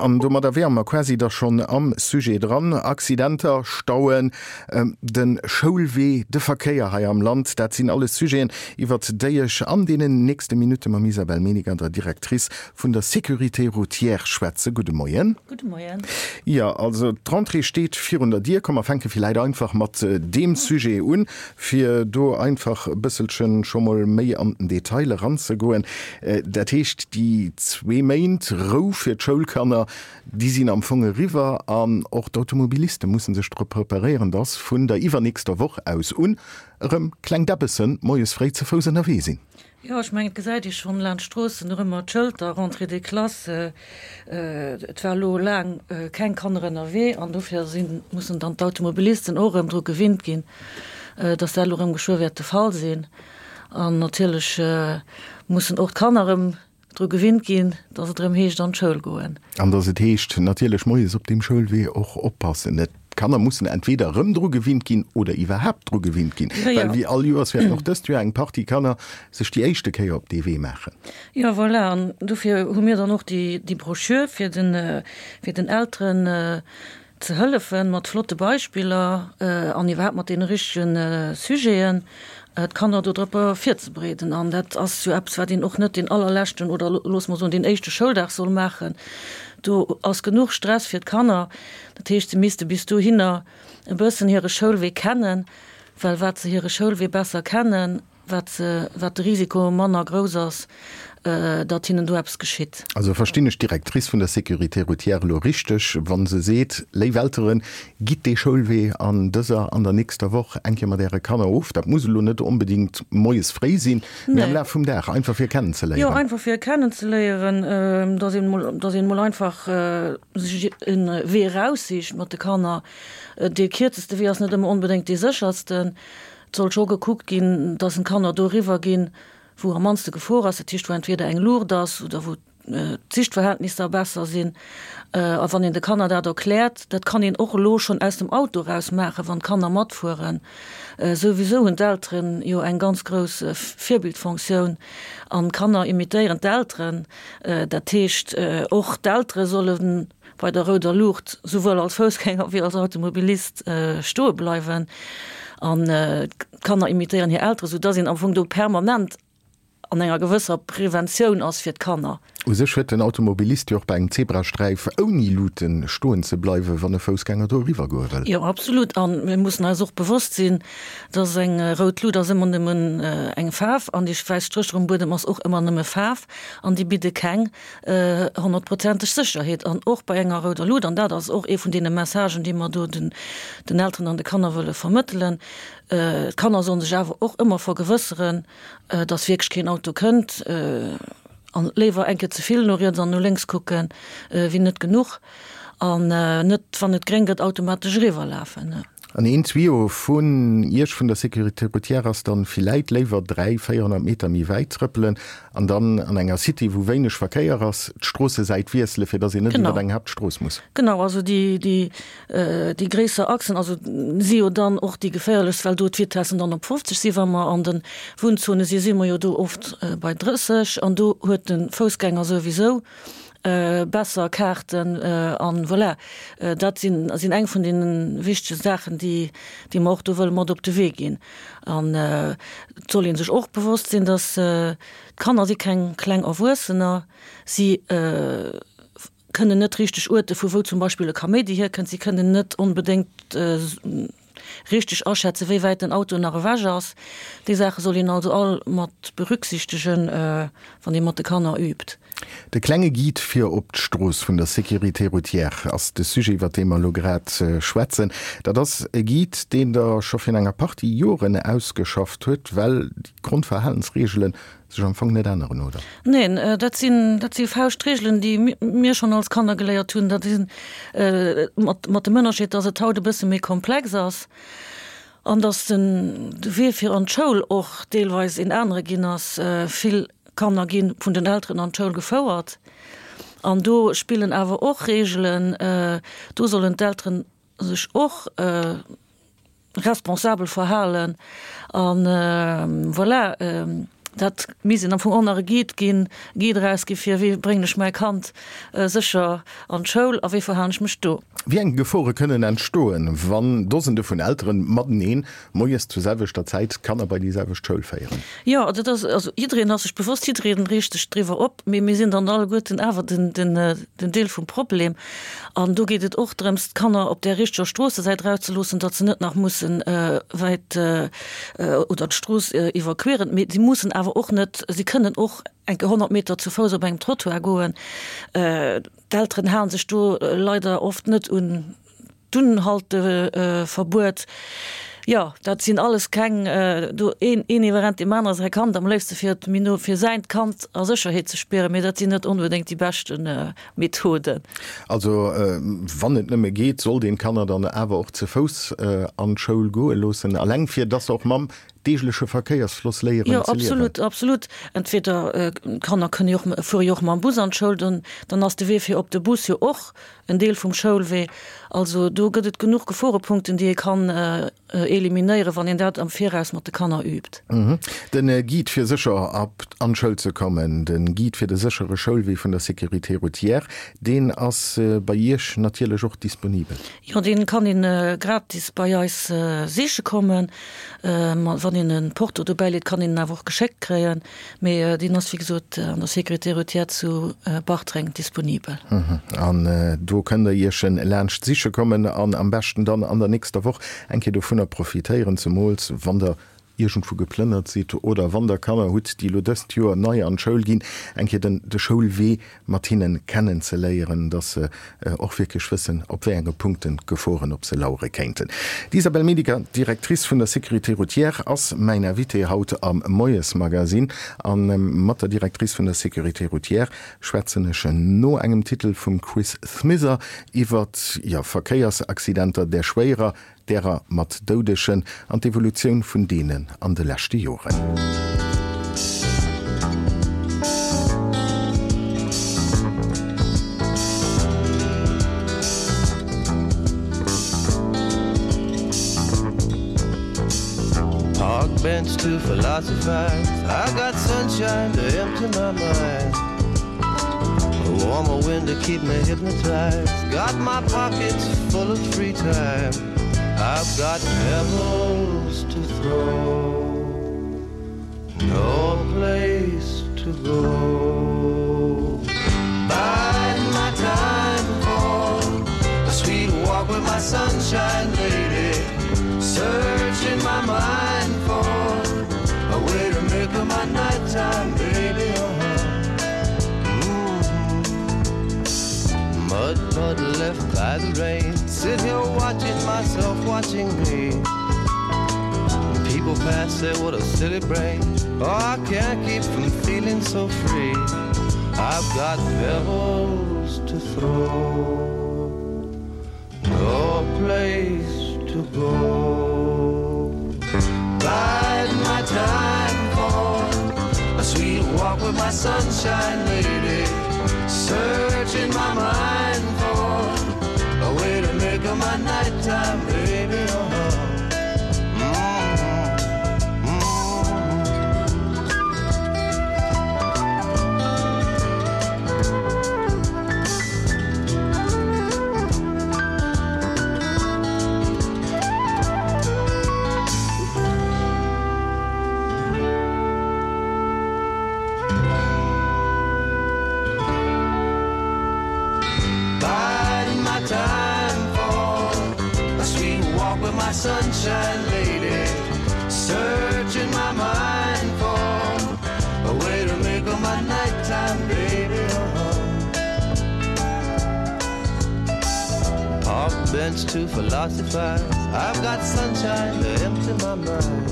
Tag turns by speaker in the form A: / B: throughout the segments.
A: an domadder wäre mer quasi da schonn am Sujet dran. Accidenter, Stauen, de Schoulwee, de Verkéier hei am Land, dat sinn alles Sujeten, iwwert déi ech an deenen nächste Minutte mam Isabelle Meniger, der Directrice vun der Sécurité routière, schwätze. Gudde Moien.
B: Gudde Moien.
A: Jo, also d'Rentrée steet virun der Dier. Komm, mer fänke villäit einfach mat deem Sujet un, fir do einfach e bësselchen scho mol méi an den Detail eranzegoen. Dat heescht, déi zwee Méint Rou fir d'Schoulkanner, déi sinn am Fong eriwwer an och d'Automobiliste musse sech drop preparéieren, dass vun der iwwernächster Woch aus un erëm kleng Däbbessen moies fréi ze Fouss ënnerwee sinn.
B: Jo, ech mengen, et gesäit ee schonn laanscht d'Stroossen nach ëmmer d'Schëlter, Rentrée des classes. Et war elo laang keng Kanner ënnerwee an dofir sinn, mussen dann d'Automobilisten och erëm dru gewinnt ginn, dass dat elo erëm geschwë wäert de Fall sinn. An natierlech mussen och d'Kanner erëm dru gewinnt ginn, dass et erëm heescht an d'Schoul goen.
A: An dass et heescht natierlech moies op deem Schoulwee och oppassen. Et D'Kanner mussen entweder erëm dru gewinnt ginn oder iwwerhaapt dru gewinnt ginn, well wéi all Joers wäerten och dëst Joer eng Partie Kanner sech déi éischte Kéier op dee Wee maachen.
B: Jo, voilà, an dofir hu mir dann och déi Broschür, fir den, fir den Elteren ze hëllefen, mat flotte Beispiller an iwwerhaapt mat deene richtege Sujeten, d'Kanner do drop virzebereeden. An dat ass jo eppes, wat een och net deen allerleschten oder loosse mer soen deen éischte Schouldag soll maachen. Do ass genuch Stress fir d'Kanner. Dat heescht, se misste bis dohinner e bëssen hire Schoulwee kennen, well wat se hire Schoulwee besser kennen, wat se, wat de Risiko manner grouss ass, datt hinnen do eppes geschitt.
A: Also verstinn ech d'Directrice vun der Sécurité routière elo richteg, wa se seet, Léif Elteren, gitt dee Schoulwee an dëser an der nächster Woch eng Kéier mat Äre Kanner of. Dat muss elo net onbedéngt moies fréi sinn, mee am Laf vum Dag, einfach fir kennenzeléieren.
B: Jo, einfach fir kennenzeléieren, datt een emol, datt een emol einfach sech e Wee eraussicht mat de Kanner. Dee kierzeste Wee ass net ëmmer onbedéngt dee séchersten. Et soll scho gekuckt ginn, datt en d'Kanner do eriwwer ginn, wou am mannste Gefor ass, dat heescht wou entweder eng Luucht ass oder wou d'Sichtverhältnisser besser sinn. A wann een de Kanner dat erkläert, dat kann een och elo schonn aus dem Auto eraus maachen, wann d'Kanner matfueren. Souwisou hunn d'Elteren jo eng ganz grouss Virbildfonctioun an d'Kanner imitéieren d'Elteren. Dat heescht, och d'Eltere solle bei der rouder Luucht souwuel als Foussgänger wéi als Automobilist stoe bleiwen an d'Kanner imitéieren hir Eltere, soudass een am Fong do permanent an enger gewësser Preventioun ass fir d'Kanner.
A: U sech huet den Automobilist jo och bei engem Zebrasträif ouni Luuten stoen ze bleiwen, wann e Foussgänger do eriwwer goe wëll.
B: Jo, absolut. A mir mussen eis och bewosst sinn, dass eng rout Lut ass ëmmer nëmmen eng Faarf an déi wäiss Strécher um Buedem ass och ëmmer nëmme Faarf an déi bidde keng honnertprozenteg Sécherheet. An och bei enger rouder Lut, an dat ass och ee vun deene Messagen, déi mer do den Elteren an de Kanner wëlle vermëttelen, d'Kanner sollen sech awer och ëmmer vergewësseren, dass wierklech keen Auto kënnt an léiwer eng Kéier ze vill no riets an no lénks kucken, wéi net genuch an net, wann et gréng gëtt, automatesch eriwwer lafen.
A: An een Tuyau vun Iech vun der Sécurité routière ass dann villäit léiwer 3, 400 Meter méi wäit trëppelen an dann an enger Cité, wou wéineg Verkéier ass, d'Stroossesäit wiesselen, fir dass een net iwwer eng Haaptstrooss muss.
B: Genau, also déi, déi Déi gréisser Achsen, also si jo dann och déi geféierlechst, well do d'Vitessen dann op 50 si. Wa mer an de Wunnzone si, si mer jo do oft bei 30 an do huet de Foussgänger souwisou besser Kaarten. An voilà, dat sinn sinn eng vun deene wichtege Saachen, déi déi mer och do wëlle mat op de Wee ginn. An et soll ee sech och bewosst sinn, datt d'Kanner si keng kleng Erwuessener, si kënnen net richteg uerte vu wou zum Beispill e Kaméidi hierkënnt, si kënnen net onbedéngt richteg aschätzen, wéi wäit den Auto nach ewech ass. Déi Saache soll een also all mat berücksichtegen, wann ee mat de Kanner übt.
A: De klenge Guide fir op d'Strooss vun der Sécurité routière ass de Sujet, iwwer dee mer elo grad schwätzen. Dat ass e Guide, deen Der scho virun enger Partie Joren ausgeschafft huet, well déi Grondverhalensreegelen sech am Fong net änneren, oder?
B: Neen, dat sinn, dat si Fauschtregelen, déi mir schonn als Kanner geléiert hunn. Dat sinn, mat, mat dem Ënnerscheed, dass et haut e bësse méi komplex ass an dass den, de Wee fir an d'Schoul och deelweis een anere ginn ass. Vill Kanner gi vun den Elteren an d'Schoul gefouert an do spillen awer och Regelen. Do sollen d'Elteren sech och responsabel verhalen an voilà. Dat misst een am Fong och nach e Guide ginn, Guide erausgi fir wéi bréngen ech mäi Kand sécher an d'Schoul a wéi verhalen ech mech do.
A: Wéi eng Gefore kënnen entstoen, wann Dosende vun Elteren mateneen moies zur selwechter Zäit d'Kanner bei déi selwecht Schoul féieren?
B: Jo, dat ass, also jiddereen ass sech bewosst, jiddereen reegt sech driwwer op, mee mir sinn dann alleguerten awer den, den, den Deel vum Problem. An do geet et och drëms, d'Kanner op där richteger Stroossesäit erauszeloossen, datt se net nach mussen wäit oder d'Strooss iwwerqueren. Mee si mussen awer och net, si kënnen och eng Kéier 100 Meter zu Fouss op engem Trottoir goen. D'Elteren hale sech do leider oft net un D'Unhalteverbuet, jo, dat sinn alles keng, do een een iwwerrennt deem anere säi Kand, am léifste fir et méi no fir säint Kand a Sécherheet ze spieren, mee dat sinn net onbedéngt déi beschte Methoden.
A: Also wann et nëmme geet, sollt een d'Kanner dann awer och ze Fouss an d'Schoul goe loossen, alleng fir dass se och mam deegleche Verkéiersfloss léieren
B: ze liewen. Jo, absolut, absolut. Entweder d'Kanner kënne jo och, fuere jo och mam Bus an d'Schoul, dann dann ass de Wee fir op de Bus jo och En Deel vum Schoulwee. Also do gëtt et genuch Geforepunkten, déi ee kann eliminéieren, wann een dat am Viraus mat de Kanner übt.
A: Den Guide fir sécher an d'Schoul ze kommen, den Guide fir de séchere Schoulwee vun der Sécurité routière, deen ass bei Iech natierlech och disponibel.
B: Jo, dee kann een gratis bei eis siche kommen. Wann een e Porto dobäi leet, kann een en awer och geschéckt kréien. Mee deen ass wéi gesot an der Sécurité routière zu Bartreng disponibel.
A: An do kënnt der Iech en laanscht siche kommen an am beschten dann an der nächster Woch eng Kéier dovunner profitéieren, zemools wann der iergendwou geplënnert sidd oder wann der Kanner hutt, déi elo dëst Joer nei an d'Schoul ginn, eng Kéier den de Schoulwee mat hinnen kennen ze léieren, dass se och wierklech wëssen, op wéi enge Punkten d'Geforen op se lauere kéinten. D'Isabelle Mediger, Directrice vun der Sécurité routière, ass mäin Invité haut am Moiesmagazine. A mat der Directrice vun der Sécurité routière schwätzen ech no engem Titel vum Chris Smither iwwer, jo, Verkéiersaccidenter, där schwéierer, därer mat Doudegen an d'Evolutioun vun deenen an de leschte Joren.
C: Park bench to philosophize I got sunshine to empty my mind A warmer wind to keep me hypnotized Got my pockets full of free time I've got pebbles to throw No place to go Bide my time for A sweet walk with my sunshine lady Searching my mind for A way to make up my nighttime baby uh -huh. mm -hmm. Mud puddle left by the rain Sit here watching myself watching me People pass say what a silly brain Oh I can't keep from feeling so free I've got pebbles to throw No place to go Bide my time for A sweet walk with my sunshine lady Searching my mind for A way to make up my nighttime baby uh -huh. Sunshine lady searching my mind for a way to make up my nighttime baby uh -huh. Park bench to philosophize I've got sunshine to empty my mind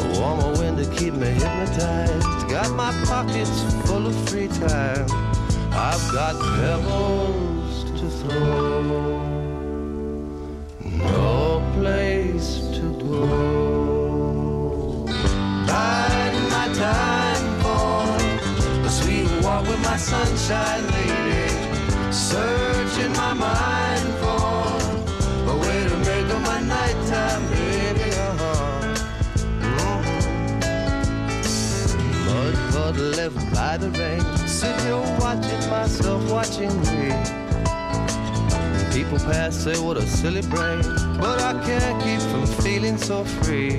C: A warmer wind to keep me hypnotized Got my pockets full of free time I've got pebbles to throw No place to go Biding my time for A sweet walk with my sunshine lady Searching my mind for A way to make up my nighttime baby uh -huh. mm -hmm. Mud left by the rain. Sit here watching myself watching me. People pass, say what a silly brain. But I can't keep from feeling so free.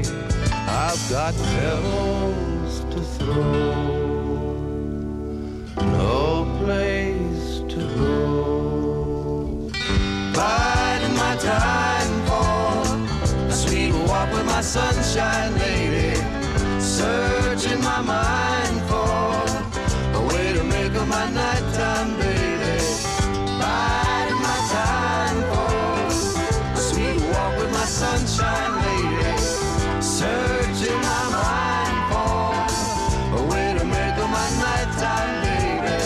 C: I've got pebbles to throw. No place to go. Biding my time for a sweet walk with my sunshine lady. Searching my mind for a way to make up my nighttime baby. Biding my time for a sweet walk with my sunshine lady. Searching my mind for a way to make up my nighttime baby.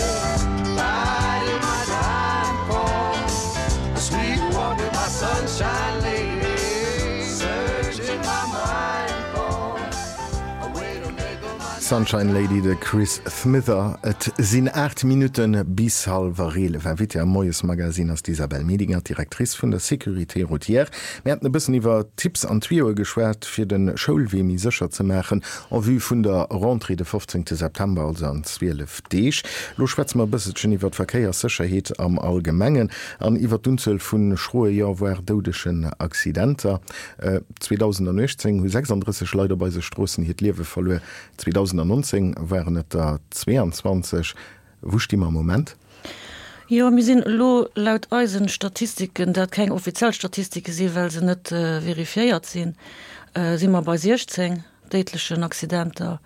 C: Biding my time for a sweet walk with my sunshine lady. Searching my mind for a way to make up my
A: Sunshine Lady, de Chris Smither. Et sinn 8 Minutte bis hallwer 11. Invitée am Moiesmagazin ass d'Isabelle Medinger, d'Directrice vun der Sécurité routière. Mir haten e bëssen iwwer Tipps an Tuyaue geschwat, fir de Schoulwee méi sécher ze maachen en vue vun der Rentrée de 15 September, also an 12 Deeg. Lo schwätze mer e bësselchen iwwer d'Verkéierssécherheet am Allgemengen an iwwer d'Unzuel vu schroe, jo voire doudegen Accidenter. 2018 hu 36 Leit op eise Stroossen hiert Liewe verluer, 2019 waren et der 22. Wou sti mer am Moment?
B: Jo, mir sinn elo laut eisen Statistiken, dat keng offiziell Statistike sinn, well se net verifiéiert sinn, si mer bei 16 déidlechen Accidenter.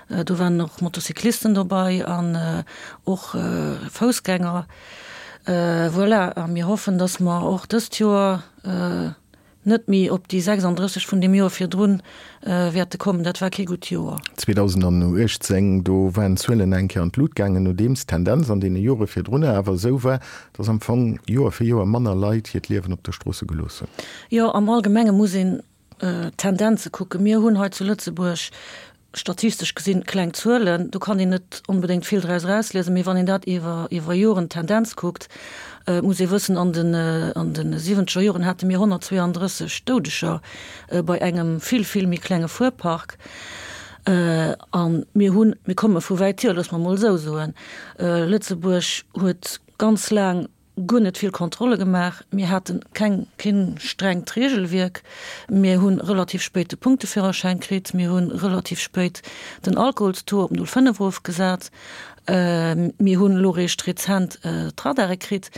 B: Do waren och Motocyclisten dobei an och Foussgänger. Voilà, a mir hoffen, dass mer och dëst Joer net méi op déi 36 vun deem Joer virdrun wäerte kommen. Dat war kee gutt Joer.
A: 2018, do waren d'Zuelen eng Kéier an d'Lut gaangen, nodeems d'Tendenz an deene Jore virdrunner awer esou war, dass am Fong Joer fir Joer manner Leit hiert Liewen op de Stroosse gelooss hunn.
B: Jo, am Allgemenge muss een d'Tendenze kucken. Mir hunn hei zu Lëtzebuerg statistesch gesinn kleng Zuelen, do kann een net onbedéngt vill draus erausliesen, mee wann een dat iwwer iwwer Joren d'Tendenz kuckt, muss ee wëssen, an den an de siwwenzeger Joren hate mir 132 Doudeger bei engem vill, vill méi klenge Fuerpark. A mir hunn, mir komme vu wäit hier, loosse mer emol esou soen, Lëtzebuerg huet ganz laang guer net vill Kontrolle gemaach, mir hate keng, keen strengt Regelwierk, mir hu relativ spéit de Punkteführerschäin kritt, mir hu relativ spéit den Alkoholstaux op 0,5 erofgesat, mir hunn elo réischt rezent d'Radare kritt.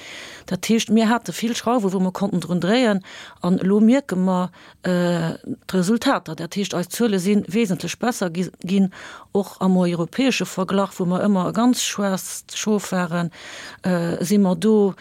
B: Dat heescht, mir hate vill Schrauwe wou mer konnten drun dréien an elo mierke mer, d'Resultater, dat heescht eis Zuele si wesentlech besser ginn, och am europäesche Verglach, wou mer ëmmer e ganz schwaarzt Schof waren, si mer do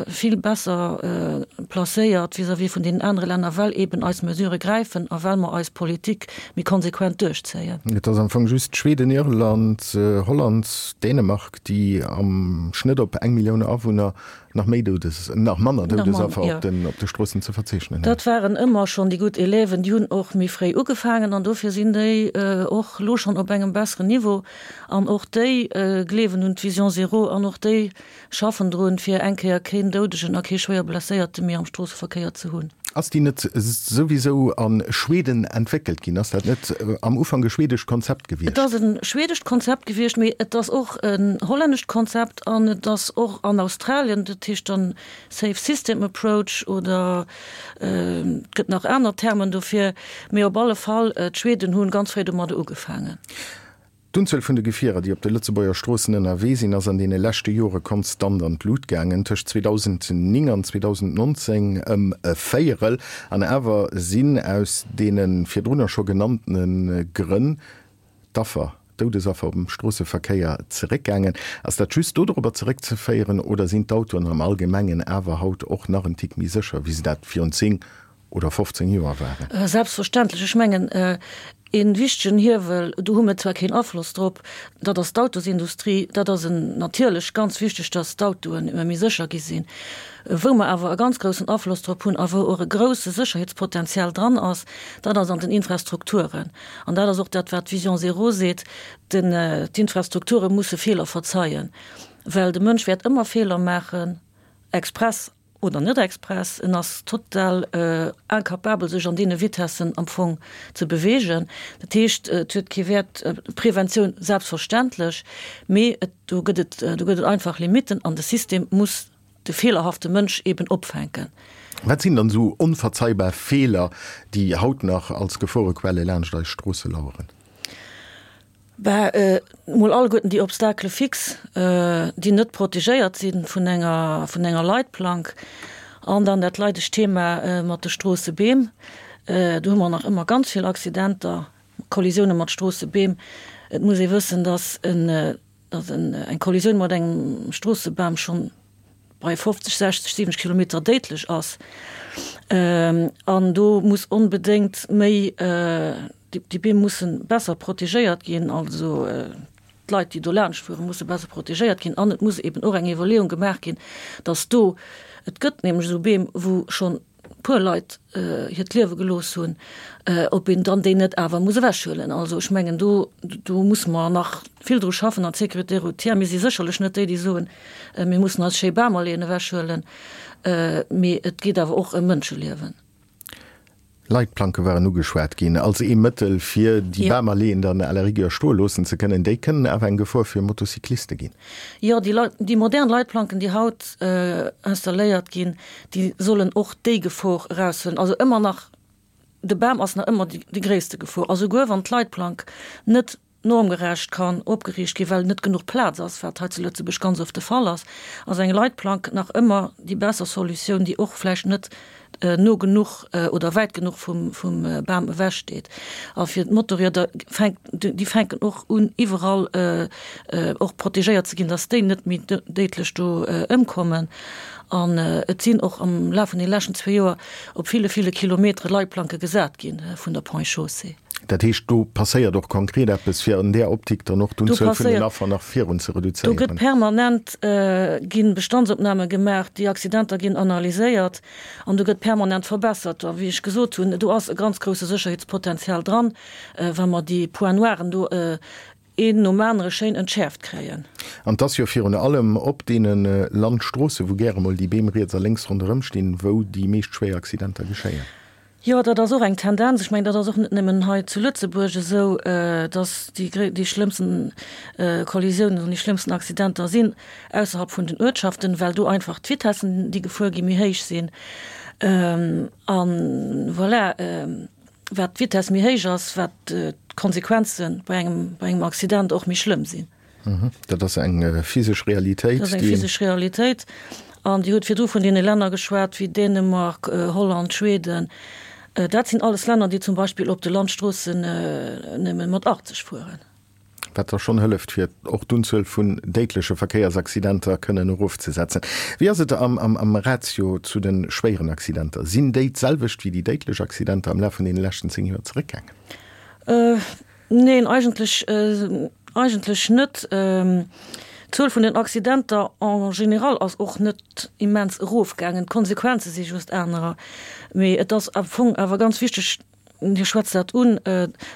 B: vill besser placéiert vis-à-vis vun deenen anere Länner, well eeben eis Mesurë gräifen a well mer eis Politik méi konsequent duerchzéien.
A: Et ass am Fong just Schweden, Irland, Holland, Dänemark, déi am Schnëtt op eng Millioun Awunner Nach méi Doudes, nach manner Doudesaffer op den, op de Stroossen ze verzeechnen hunn.
B: Dat waren ëmmer schonn déi gutt Élèven, déi hunn och méi fréi ugefaangen an dofir sinn déi och elo schonn op engem besseren Niveau an och déi gleewen un d'Vision zéro an och déi schaffen drun, fir eng Kéier keen Doudegen a kee schwéier Blesséierte méi am Stroosseverkéier ze hunn.
A: Ass déi net souwisou a Schweden entwéckelt ginn? Ass dat net am Ufank e schwedescht Konzept gewiescht?
B: Et ass e schwedescht Konzept gewiescht, mee et ass och en hollännescht Konzept an et ass och an Australien, dat heescht dann Safe System Approach oder et gëtt nach aner Termen dofir, mee op alle Fall, d'Schweden hunn ganz fréi domadder ugefaangen.
A: D'Unzuel vun de Gefierer, déi op de Lëtzebuerger Stroossen ënnerwee sinn, ass an deene leschte Jore konstant an d'Lut gaangen, tëscht 2009 an 2019 ëm e Véierel. An awer sinn aus deene virdrunner scho genanntene Grënn d'Affer, d'Doudesaffer um Stroosseverkéier zeréckgaangen. Ass dat just dodropper zeréckzeféieren oder sinn d'Autoen am Allgemengen awer haut och nach en Tick méi sécher, wéi se dat virun 10 oder 15 Joer waren?
B: Selbstverständlech. Ech mengen, ee wichtegen Hiewel, do hu mir zwar keen Afloss drop, dat ass d'Autosindustrie. Dat ass en natierlech ganz wichteg, dass d'Autoen ëmmer méi sécher gi sinn. Wou mer awer e ganz groussen Afloss drop hunn a wou och e grouse Sécherheetspotenzial dran ass, dat ass an den Infrastrukturen. An dat ass och dat, wat d'Vision zéro seet, den, d'Infrastrukture musse Feeler verzeien, well de Mënsch wäert ëmmer Feeler maachen, express. Oder net express, en ass total incapabel sech an deene Vitessen am Fong ze beweegen. Dat heescht, et huet kee Wäert, Preventioun selbstverständlech, mee et, do gëtt et, do gëtt et einfach Limitten an de System muss de feelerhafte Mënsch eben opfänken.
A: Wat sinn dann esou onverzeihbar Feeler, déi haut nach als Geforequelle laanscht eis Stroosse laueren?
B: Bah, mol alleguerten déi Obstacles fixes, déi net protegéiert si vun enger, vun enger Leitplank. An dann dat leidegt Thema mat de Stroossebeem. Do hu mer nach ëmmer ganz vill Accidenter, Kollisioune mat Stroossebeem. Et muss ee wëssen, dass en, dass en, eng Kollisioun mat engem Stroossebam schonn bei 50, 60, 70 Kilometer déidlech ass. An do muss onbedéngt méi, Déi Beem musse besser protegéiert ginn, also d'Leit, déi do laanscht fueren, musse besser protegéiert ginn. An et muss eben och eng Iwwerleeung gemaach ginn, datt do, et gëtt nämlech esou Beem, wou schonn e puer Leit hiert Liewe gelooss hunn, ob een dann déi net awer muss ewechhuelen. Also ech mengen, do, do musse mer nach vill dru schaffen an d'Sécurité routière, mir si sécherlech net déi, déi soen, mir mussen eis schéi Bamalleeën ewechhuelen, mee et geet awer och ëm Mënscheliewen.
A: Leitplanke waren ugeschwat ginn als ee Mëttel, fir déi Bamalleeën dann à la rigueur stoe loossen ze kënnen. Déi kënnen awer eng Gefor fir Motocycliste ginn.
B: Jo, déi Leit, déi modern Leitplanken, déi haut installéiert ginn, déi sollen och déi Gefor eraushuelen. Also ëmmer nach, de Bam ass nach ëmmer déi gréisste Gefor. A souguer wann d'Leitplank net normgerecht kann opgeriicht ginn, well net genuch Plaz ass, wat hei zu Lëtzebuerg ganz oft de Fall ass, ass eng Leitplank nach ëmmer déi besser Solutioun, déi och vläicht net no genuch oder wäit genuch vum Bam ewech steet. A fir d'Motorrieder fänkt, déi fänken och un iwwerall och protegéiert ze ginn, datt déi net méi déidlech do ëmkommen. An et sinn och am Laf vun de leschten zwee Joer op ville, ville Kilometere Leitplanke gesat gi vun der Ponts et Chaussées.
A: Dat heescht, do passéiert och konkret eppes, fir an där Optik dann och d'Unzuel vun den Affer nach virun ze reduzéieren.
B: Do gëtt permanent, gi Bestandsopname gemaach, déi Accidenter ginn analyséiert an do gëtt permanent verbessert. A wéi ech gesot hunn, do ass e ganz grousse Sécherheetspotenzial dran, wa mer déi Points noiren do een nom anere schéin entschäerft kréien.
A: An 't ass jo virun allem op deene Landstroosse, wou gäre mol déi Beem riets a lénks ronderëm stinn, wou déi meescht schwéier Accidenter geschéien.
B: Jo, dat ass och eng Tendenz. Ech mengen, dat ass och net nëmmen hei zu Lëtzebuerg esou, dass déi, déi schlëmmsten Kollisiounen an déi schlëmmsten Accidenter sinn ausserhalb vun den Uertschaften, well do einfach d'Vitessen, déi gefuer ginn, méi héich sinn. A voilà, wat d'Vitess méi héich ass, wat d'Konsequenze bei engem, bei engem Accident och méi schlëmm sinn.
A: Dat ass eng physesch Realitéit.
B: Dat ass eng physesch Realitéit. An Dir hutt virdru vun deene Länner geschwat wéi Dänemark, Holland, Schweden. Dat sinn alles Länner, déi zum Beispill op de Landstroossen nëmme mat 80 fueren.
A: Wat da schonn hëlleft, fir och d'Unzuel vun déidleche Verkéiersaccidenter kënnen erofzesetzen. Wéi ass et am Ratio zu de schwéieren Accidenter? Sinn déi d'selwecht wéi déi déidlech Accidenter am Laf vun deene leschten 10 Joer zeréckgaangen?
B: Neen, eigentlech, eigentlech net. D'Zuel vun den Accidenter en général ass och net immens erofgaangen. D'Konsequenze si just anerer. Mee et ass am Fong awer ganz wichteg, Dir schwätzt dat un,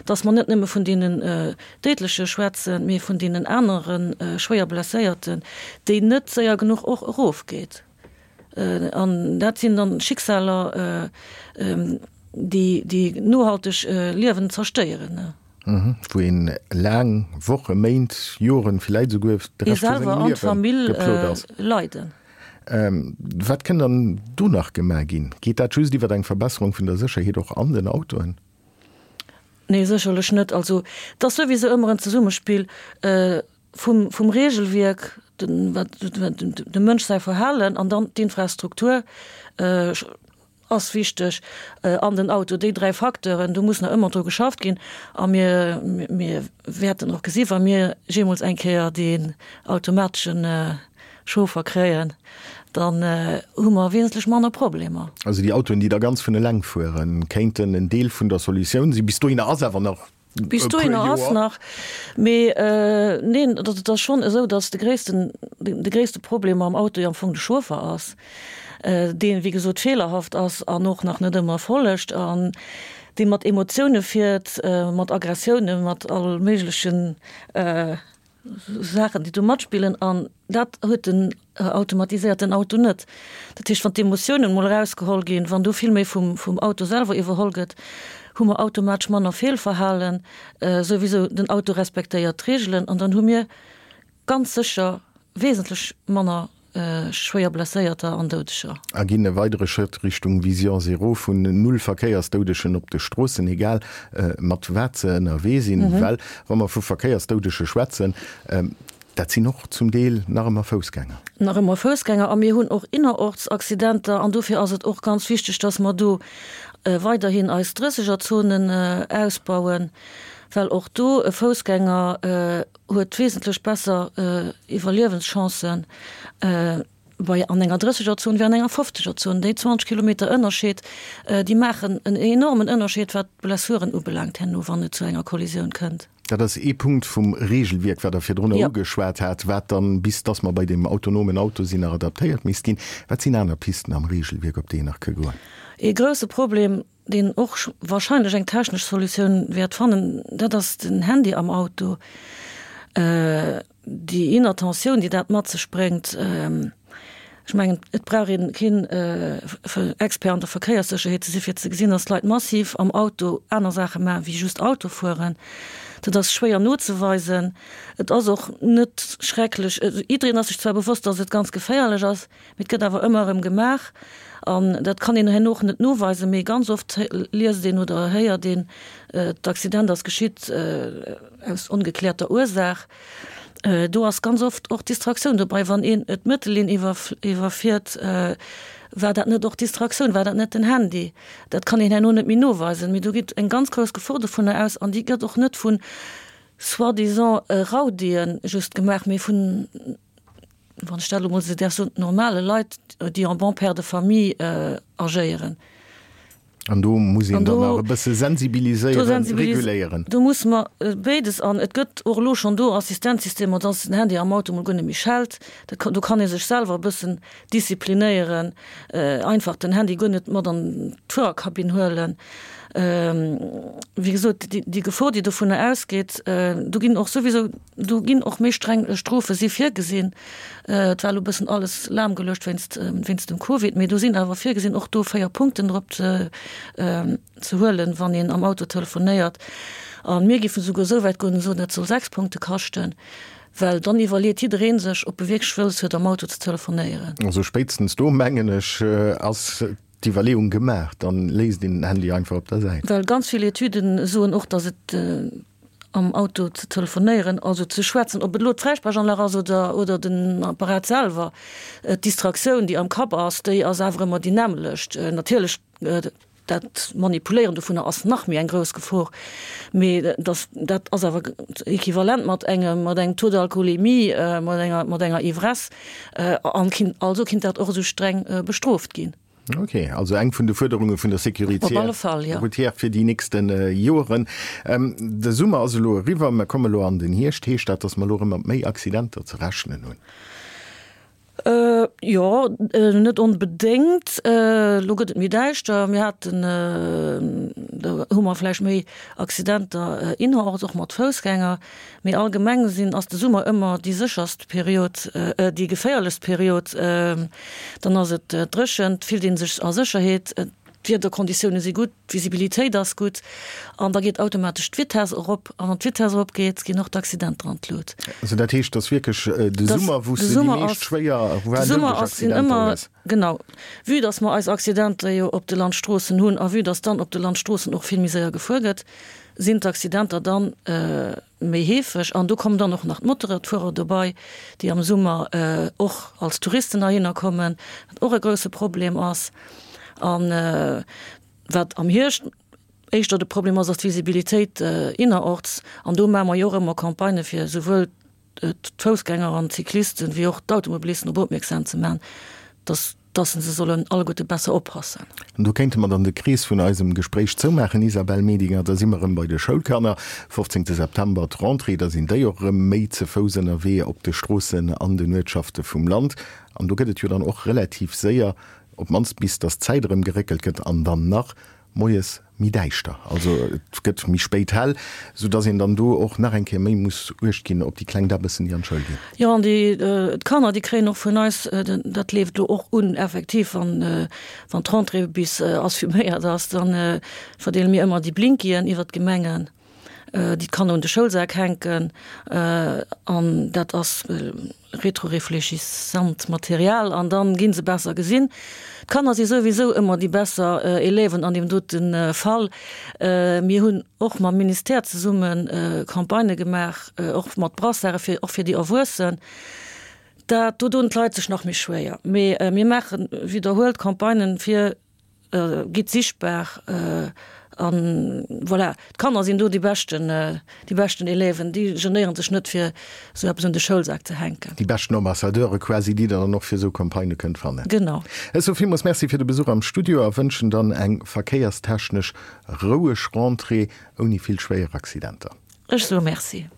B: dass mer net nëmme vun deenen Déidleche schwätzen, mee vun deenen anere schwéier Blesséierten, déi net séier genuch och erofgeet. An dat sinn dann Schicksaler, déi déi nohalteg Liewen zerstéieren.
A: Wou een laang Wochen, Méint, Joren, villäit esouguer de Rescht vu sengem Liewen geplot ass.
B: Leiden.
A: Wat kënn dann do nach gemaach ginn? Geet dat just iwwer eng Verbesserung vun der Sécherheet och an den Autoen?
B: Nee, sécherlech net. Also, et ass souwisou ëmmer en Zesummespill vum, vum Regelwierk, den, wat, dem Mënsch säi Verhalen an dann d'Infrastruktur ass wichteg an den Auto. Déi 3 Facteuren, do muss nach ëmmer dru geschafft ginn a mir, mir wäerten och gesi wa mir jeemools eng Kéier deen automateschen Chauffer kréien, dann hu mer wesentlech manner Problemer.
A: Also déi Autoen, déi da ganz vun eleng fueren, kéinten en Deel vun der Solutioun sinn. Bis dohinner ass awer nach
B: Bis dohinner ass nach, mee neen, et ass schonn esou, datt de gréissten, de gréisste Problem am Auto jo am Fong de Chauffer ass, deen, wéi gesot, feelerhaft ass an och nach net ëmmer follegt an dee mat Emotioune fiert, mat Aggressiounen, mat all méiglechen. Saachen, déi do matspillen an dat huet den automatiséierten Auto net. Dat heescht, wann d'Emotiounen emol erausgeholl ginn, wann do vill méi vum, vum Auto selwer iwwerholl gëtt, hu mer automatesch manner Feelverhalen, souwisou den Auto respektéiert d'Reegelen an dann hu mir ganz sécher wesentlech manner schwéier Blesséierter an Doudeger.
A: A ginn e weidere Schrëtt Richtung Vision Zéro vun null Verkéiersdoudegen op de Stroossen, egal mat wat se ënnerwee sinn. Well wa mer vu Verkéiersdoudege schwätzen, dat sinn och zum Deel nach ëmmer Foussgänger.
B: Nach ëmmer Foussgänger. A mir hunn och innerorts Accidenter. An dofir ass et och ganz wichteg, dass mer do weiderhin eis Drëssegerzonen ausbauen, well och do e Foussgänger huet wesentlech besser Iwwerliewenschancen bei an enger Drëssegerzon wéi an enger Fofzegerzon. Déi 20 Kilometer Ënnerscheed, déi maachen en enormen Ënnerscheed, wat d'Blessuren ubelaangt herno, wann et zu enger Kollisioun kënnt.
A: Dat ass ee Punkt vum Regelwierk, wat Der virdrunner ugeschwat hat, wat dann, bis dass mer bei deem autonomen Auto sinn, nach adaptéiert misst ginn. Wat sinn aner Pisten am Regelwierk, op déi een nach ka goen?
B: Ee grouse Problem, deen och wahrscheinlech eng technesch Solutioun wäert fannen, dat ass den Handy am Auto, déi Inattentioun, déi dat mat sech bréngt. Ech mengen, et brauch ee keen Expert an der Verkéierssécherheet ze si fir ze gesinn, datt d'Leit massiv am Auto aner Saache maachen, wéi just Auto fueren. Dat ass schwéier nozeweisen. Et ass och net schrecklech, jiddereen ass sech zwar bewosst, datt et ganz geféierlech ass, Mee et gëtt awer ëmmer erëm gemaach an dat kann een herno och net noweisen, mee ganz oft liest een oder héiert een, d'Accident ass geschitt aus ongekläerter Ursaach. Do ass ganz oft och Distraktioun dobei. Wann een d'Mëttellinn iwwerfiert, war dat net och Distraktioun, war dat net den Handy? Dat kann een herno net méi noweisen. Mee do geet eng ganz grouss Gefor dovunner aus an déi gëtt och net vu soi-disant Raudien just gemaach, mee vun, wann ech dat elo mol esou däerf soen, normale Leit, déi en bon père de famille agéieren.
A: An do muss een dann nach e bësse sensibiliséieren, reguléieren.
B: Do musse mer béides. An et gëtt och elo schonn do Assistenzsystemer, dass den Handy am Auto mol guer net méi schellt. Dat, do kann ee sech selwer e bëssen disziplinéieren, einfach den Handy guer net mat an d'Fuererkabinn huelen. Wéi gesot, déi Gefor, déi dovunner ausgeet, do ginn och souwisou, Do ginn och méi streng Strofe si virgesinn. Et war elo e bëssen alles lahmgeluecht wéinst, wéinst dem Covid, mee do sinn awer virgesinn, och do 4 Punkten drop ze, ze huelen, wann een am Auto telefonéiert. A mir géifen esouguer esou wäit goen an soen, dat soll 6 Punkte kaschten, well dann iwwerleet jidderee sech, ob e wierklech wëlles huet, am Auto ze telefonéieren.
A: Also spéitstens do, mengen ech, ass d'Iwwerleeung gemaach, dann léisst een den Handy einfach op der Säit.
B: Well ganz vill Etüden soen och, dass et am Auto ze telefonéieren, also ze schwätzen, ob et elo d'Fräisprechanlag ass oder, oder den Apparat selwer, d'Distraktioun, déi am Kapp ass, déi ass awer ëmmer déi nämmlecht. Natierlech, dat Manipuléieren dovunner ass nach méi eng grouss Gefor, mee dass, dat ass awer equivalent mat engem, mat engem Taux d'alcoolémie, mat enger, mat enger Ivresse, an kinnt, also kinnt dat och esou streng bestrooft ginn.
A: Ok, also eng vun de Fuerderunge vun der Sécurité routière fir déi nächste Joeren. De Summer ass elo eriwwer, mer komme elo an den Hierscht. Heescht dat, datt mer elo erëm mat méi Accidenter ze rechnen hunn?
B: Jo, net onbedéngt. Elo gëtt et méi däischter. Mir haten, do hu mer vläicht méi Accidenter innerorts, och mat Foussgänger. Mee allgemeng sinn, ass de Summer ëmmer déi sécherst Period, déi geféierlechst Period. Dann ass et dréchen, et fillt ee sech a Sécherheet, d'Wiederkonditioune si gutt, d'Visibilitéit ass gutt an da geet automatesch d'Vitess erop. A wann d'Vitess eropgeet, ginn och d'Accidenter an d'Lut.
A: Also dat heescht, dass wierklech de Summer, wou s de déi meescht schwéier,
B: voire doudeleg Accidenter hues? Genau. Vue dass mer eis Accidenter jo op de Landstroossen hunn a vue dass dann op de Landstroossen och vill méi séier gefuer gëtt, sinn d'Accidenter dann méi heefeg. An do kommen dann och nach d'Motorradfuerer dobei, déi am Summer och als Touristen heihinner kommen, wat och e grouse Problem ass. An wat am Hierscht éischter de Problem ass, ass d'Visibilitéit innerorts. An do maache mer jo och ëmmer Campagnë fir esouwuel d'Foussgänger an d'Cyclisten, wéi och d'Automobilisten drop opmierksam ze maachen, dass dass se sollen alleguerte besser oppassen.
A: An do kéinte mer dann de Krees vun eisem Gespréich zoumaachen, Isabelle Medinger. Da si mer erëm bei de Schoulkanner. 15 September d'Rentrée, da sinn déi och erëm méi ze Fouss ënnerwee op de Stroossen an den Uertschafte vum Land. An do gëtt et jo dann och relativ séier, op d'mannst bis dass d'Zäit erëm geréckelt gëtt, an dann nach. moies méi däischter, also et gëtt méi spéit hell, sou dass een dann do och nach eng Kéier méi muss uecht ginn op déi kleng Däbbessen, déi an d'Schoul ginn.
B: Jo, an déi d'Kanner, déi kréien och vun eis, dat leeft elo och un, effektiv, wann wann d'Rentrée bis assuméiert ass, da verdeele mir ëmmer déi Blinkien iwwert d'Gemengen, déi d'Kanner un de Schoulsak hänken an dat ass Rétroréfléchissant Material an dann ginn se besser gesinn. D'Kanner si souwisou ëmmer déi besser Élèven an deem dote Fall. Mir hunn och mam Ministère zesumme Campagnë gemaach, och mat Brassarde fir och fir déi Erwuessen. Dat do doen d'Leit sech nach méi schwéier. Mee mir maache widderhuelt Campagnen fir Gitt sichtbar an voilà. D'Kanner sinn do déi beschten, déi beschten Élèven, déi genéieren sech net fir esou eppes un de Schoulsak ze hänken.
A: Déi beschten Ambassadeure quasi, déi der dann och fir esou Campagnë kënnt fannen.
B: Genau.
A: Ech soe villmools Merci fir de Besuch am Studio a wënschen dann eng verkéierstechnesch roueg Rentrée ouni vill schwéier Accidenter.
B: Ech soe Merci.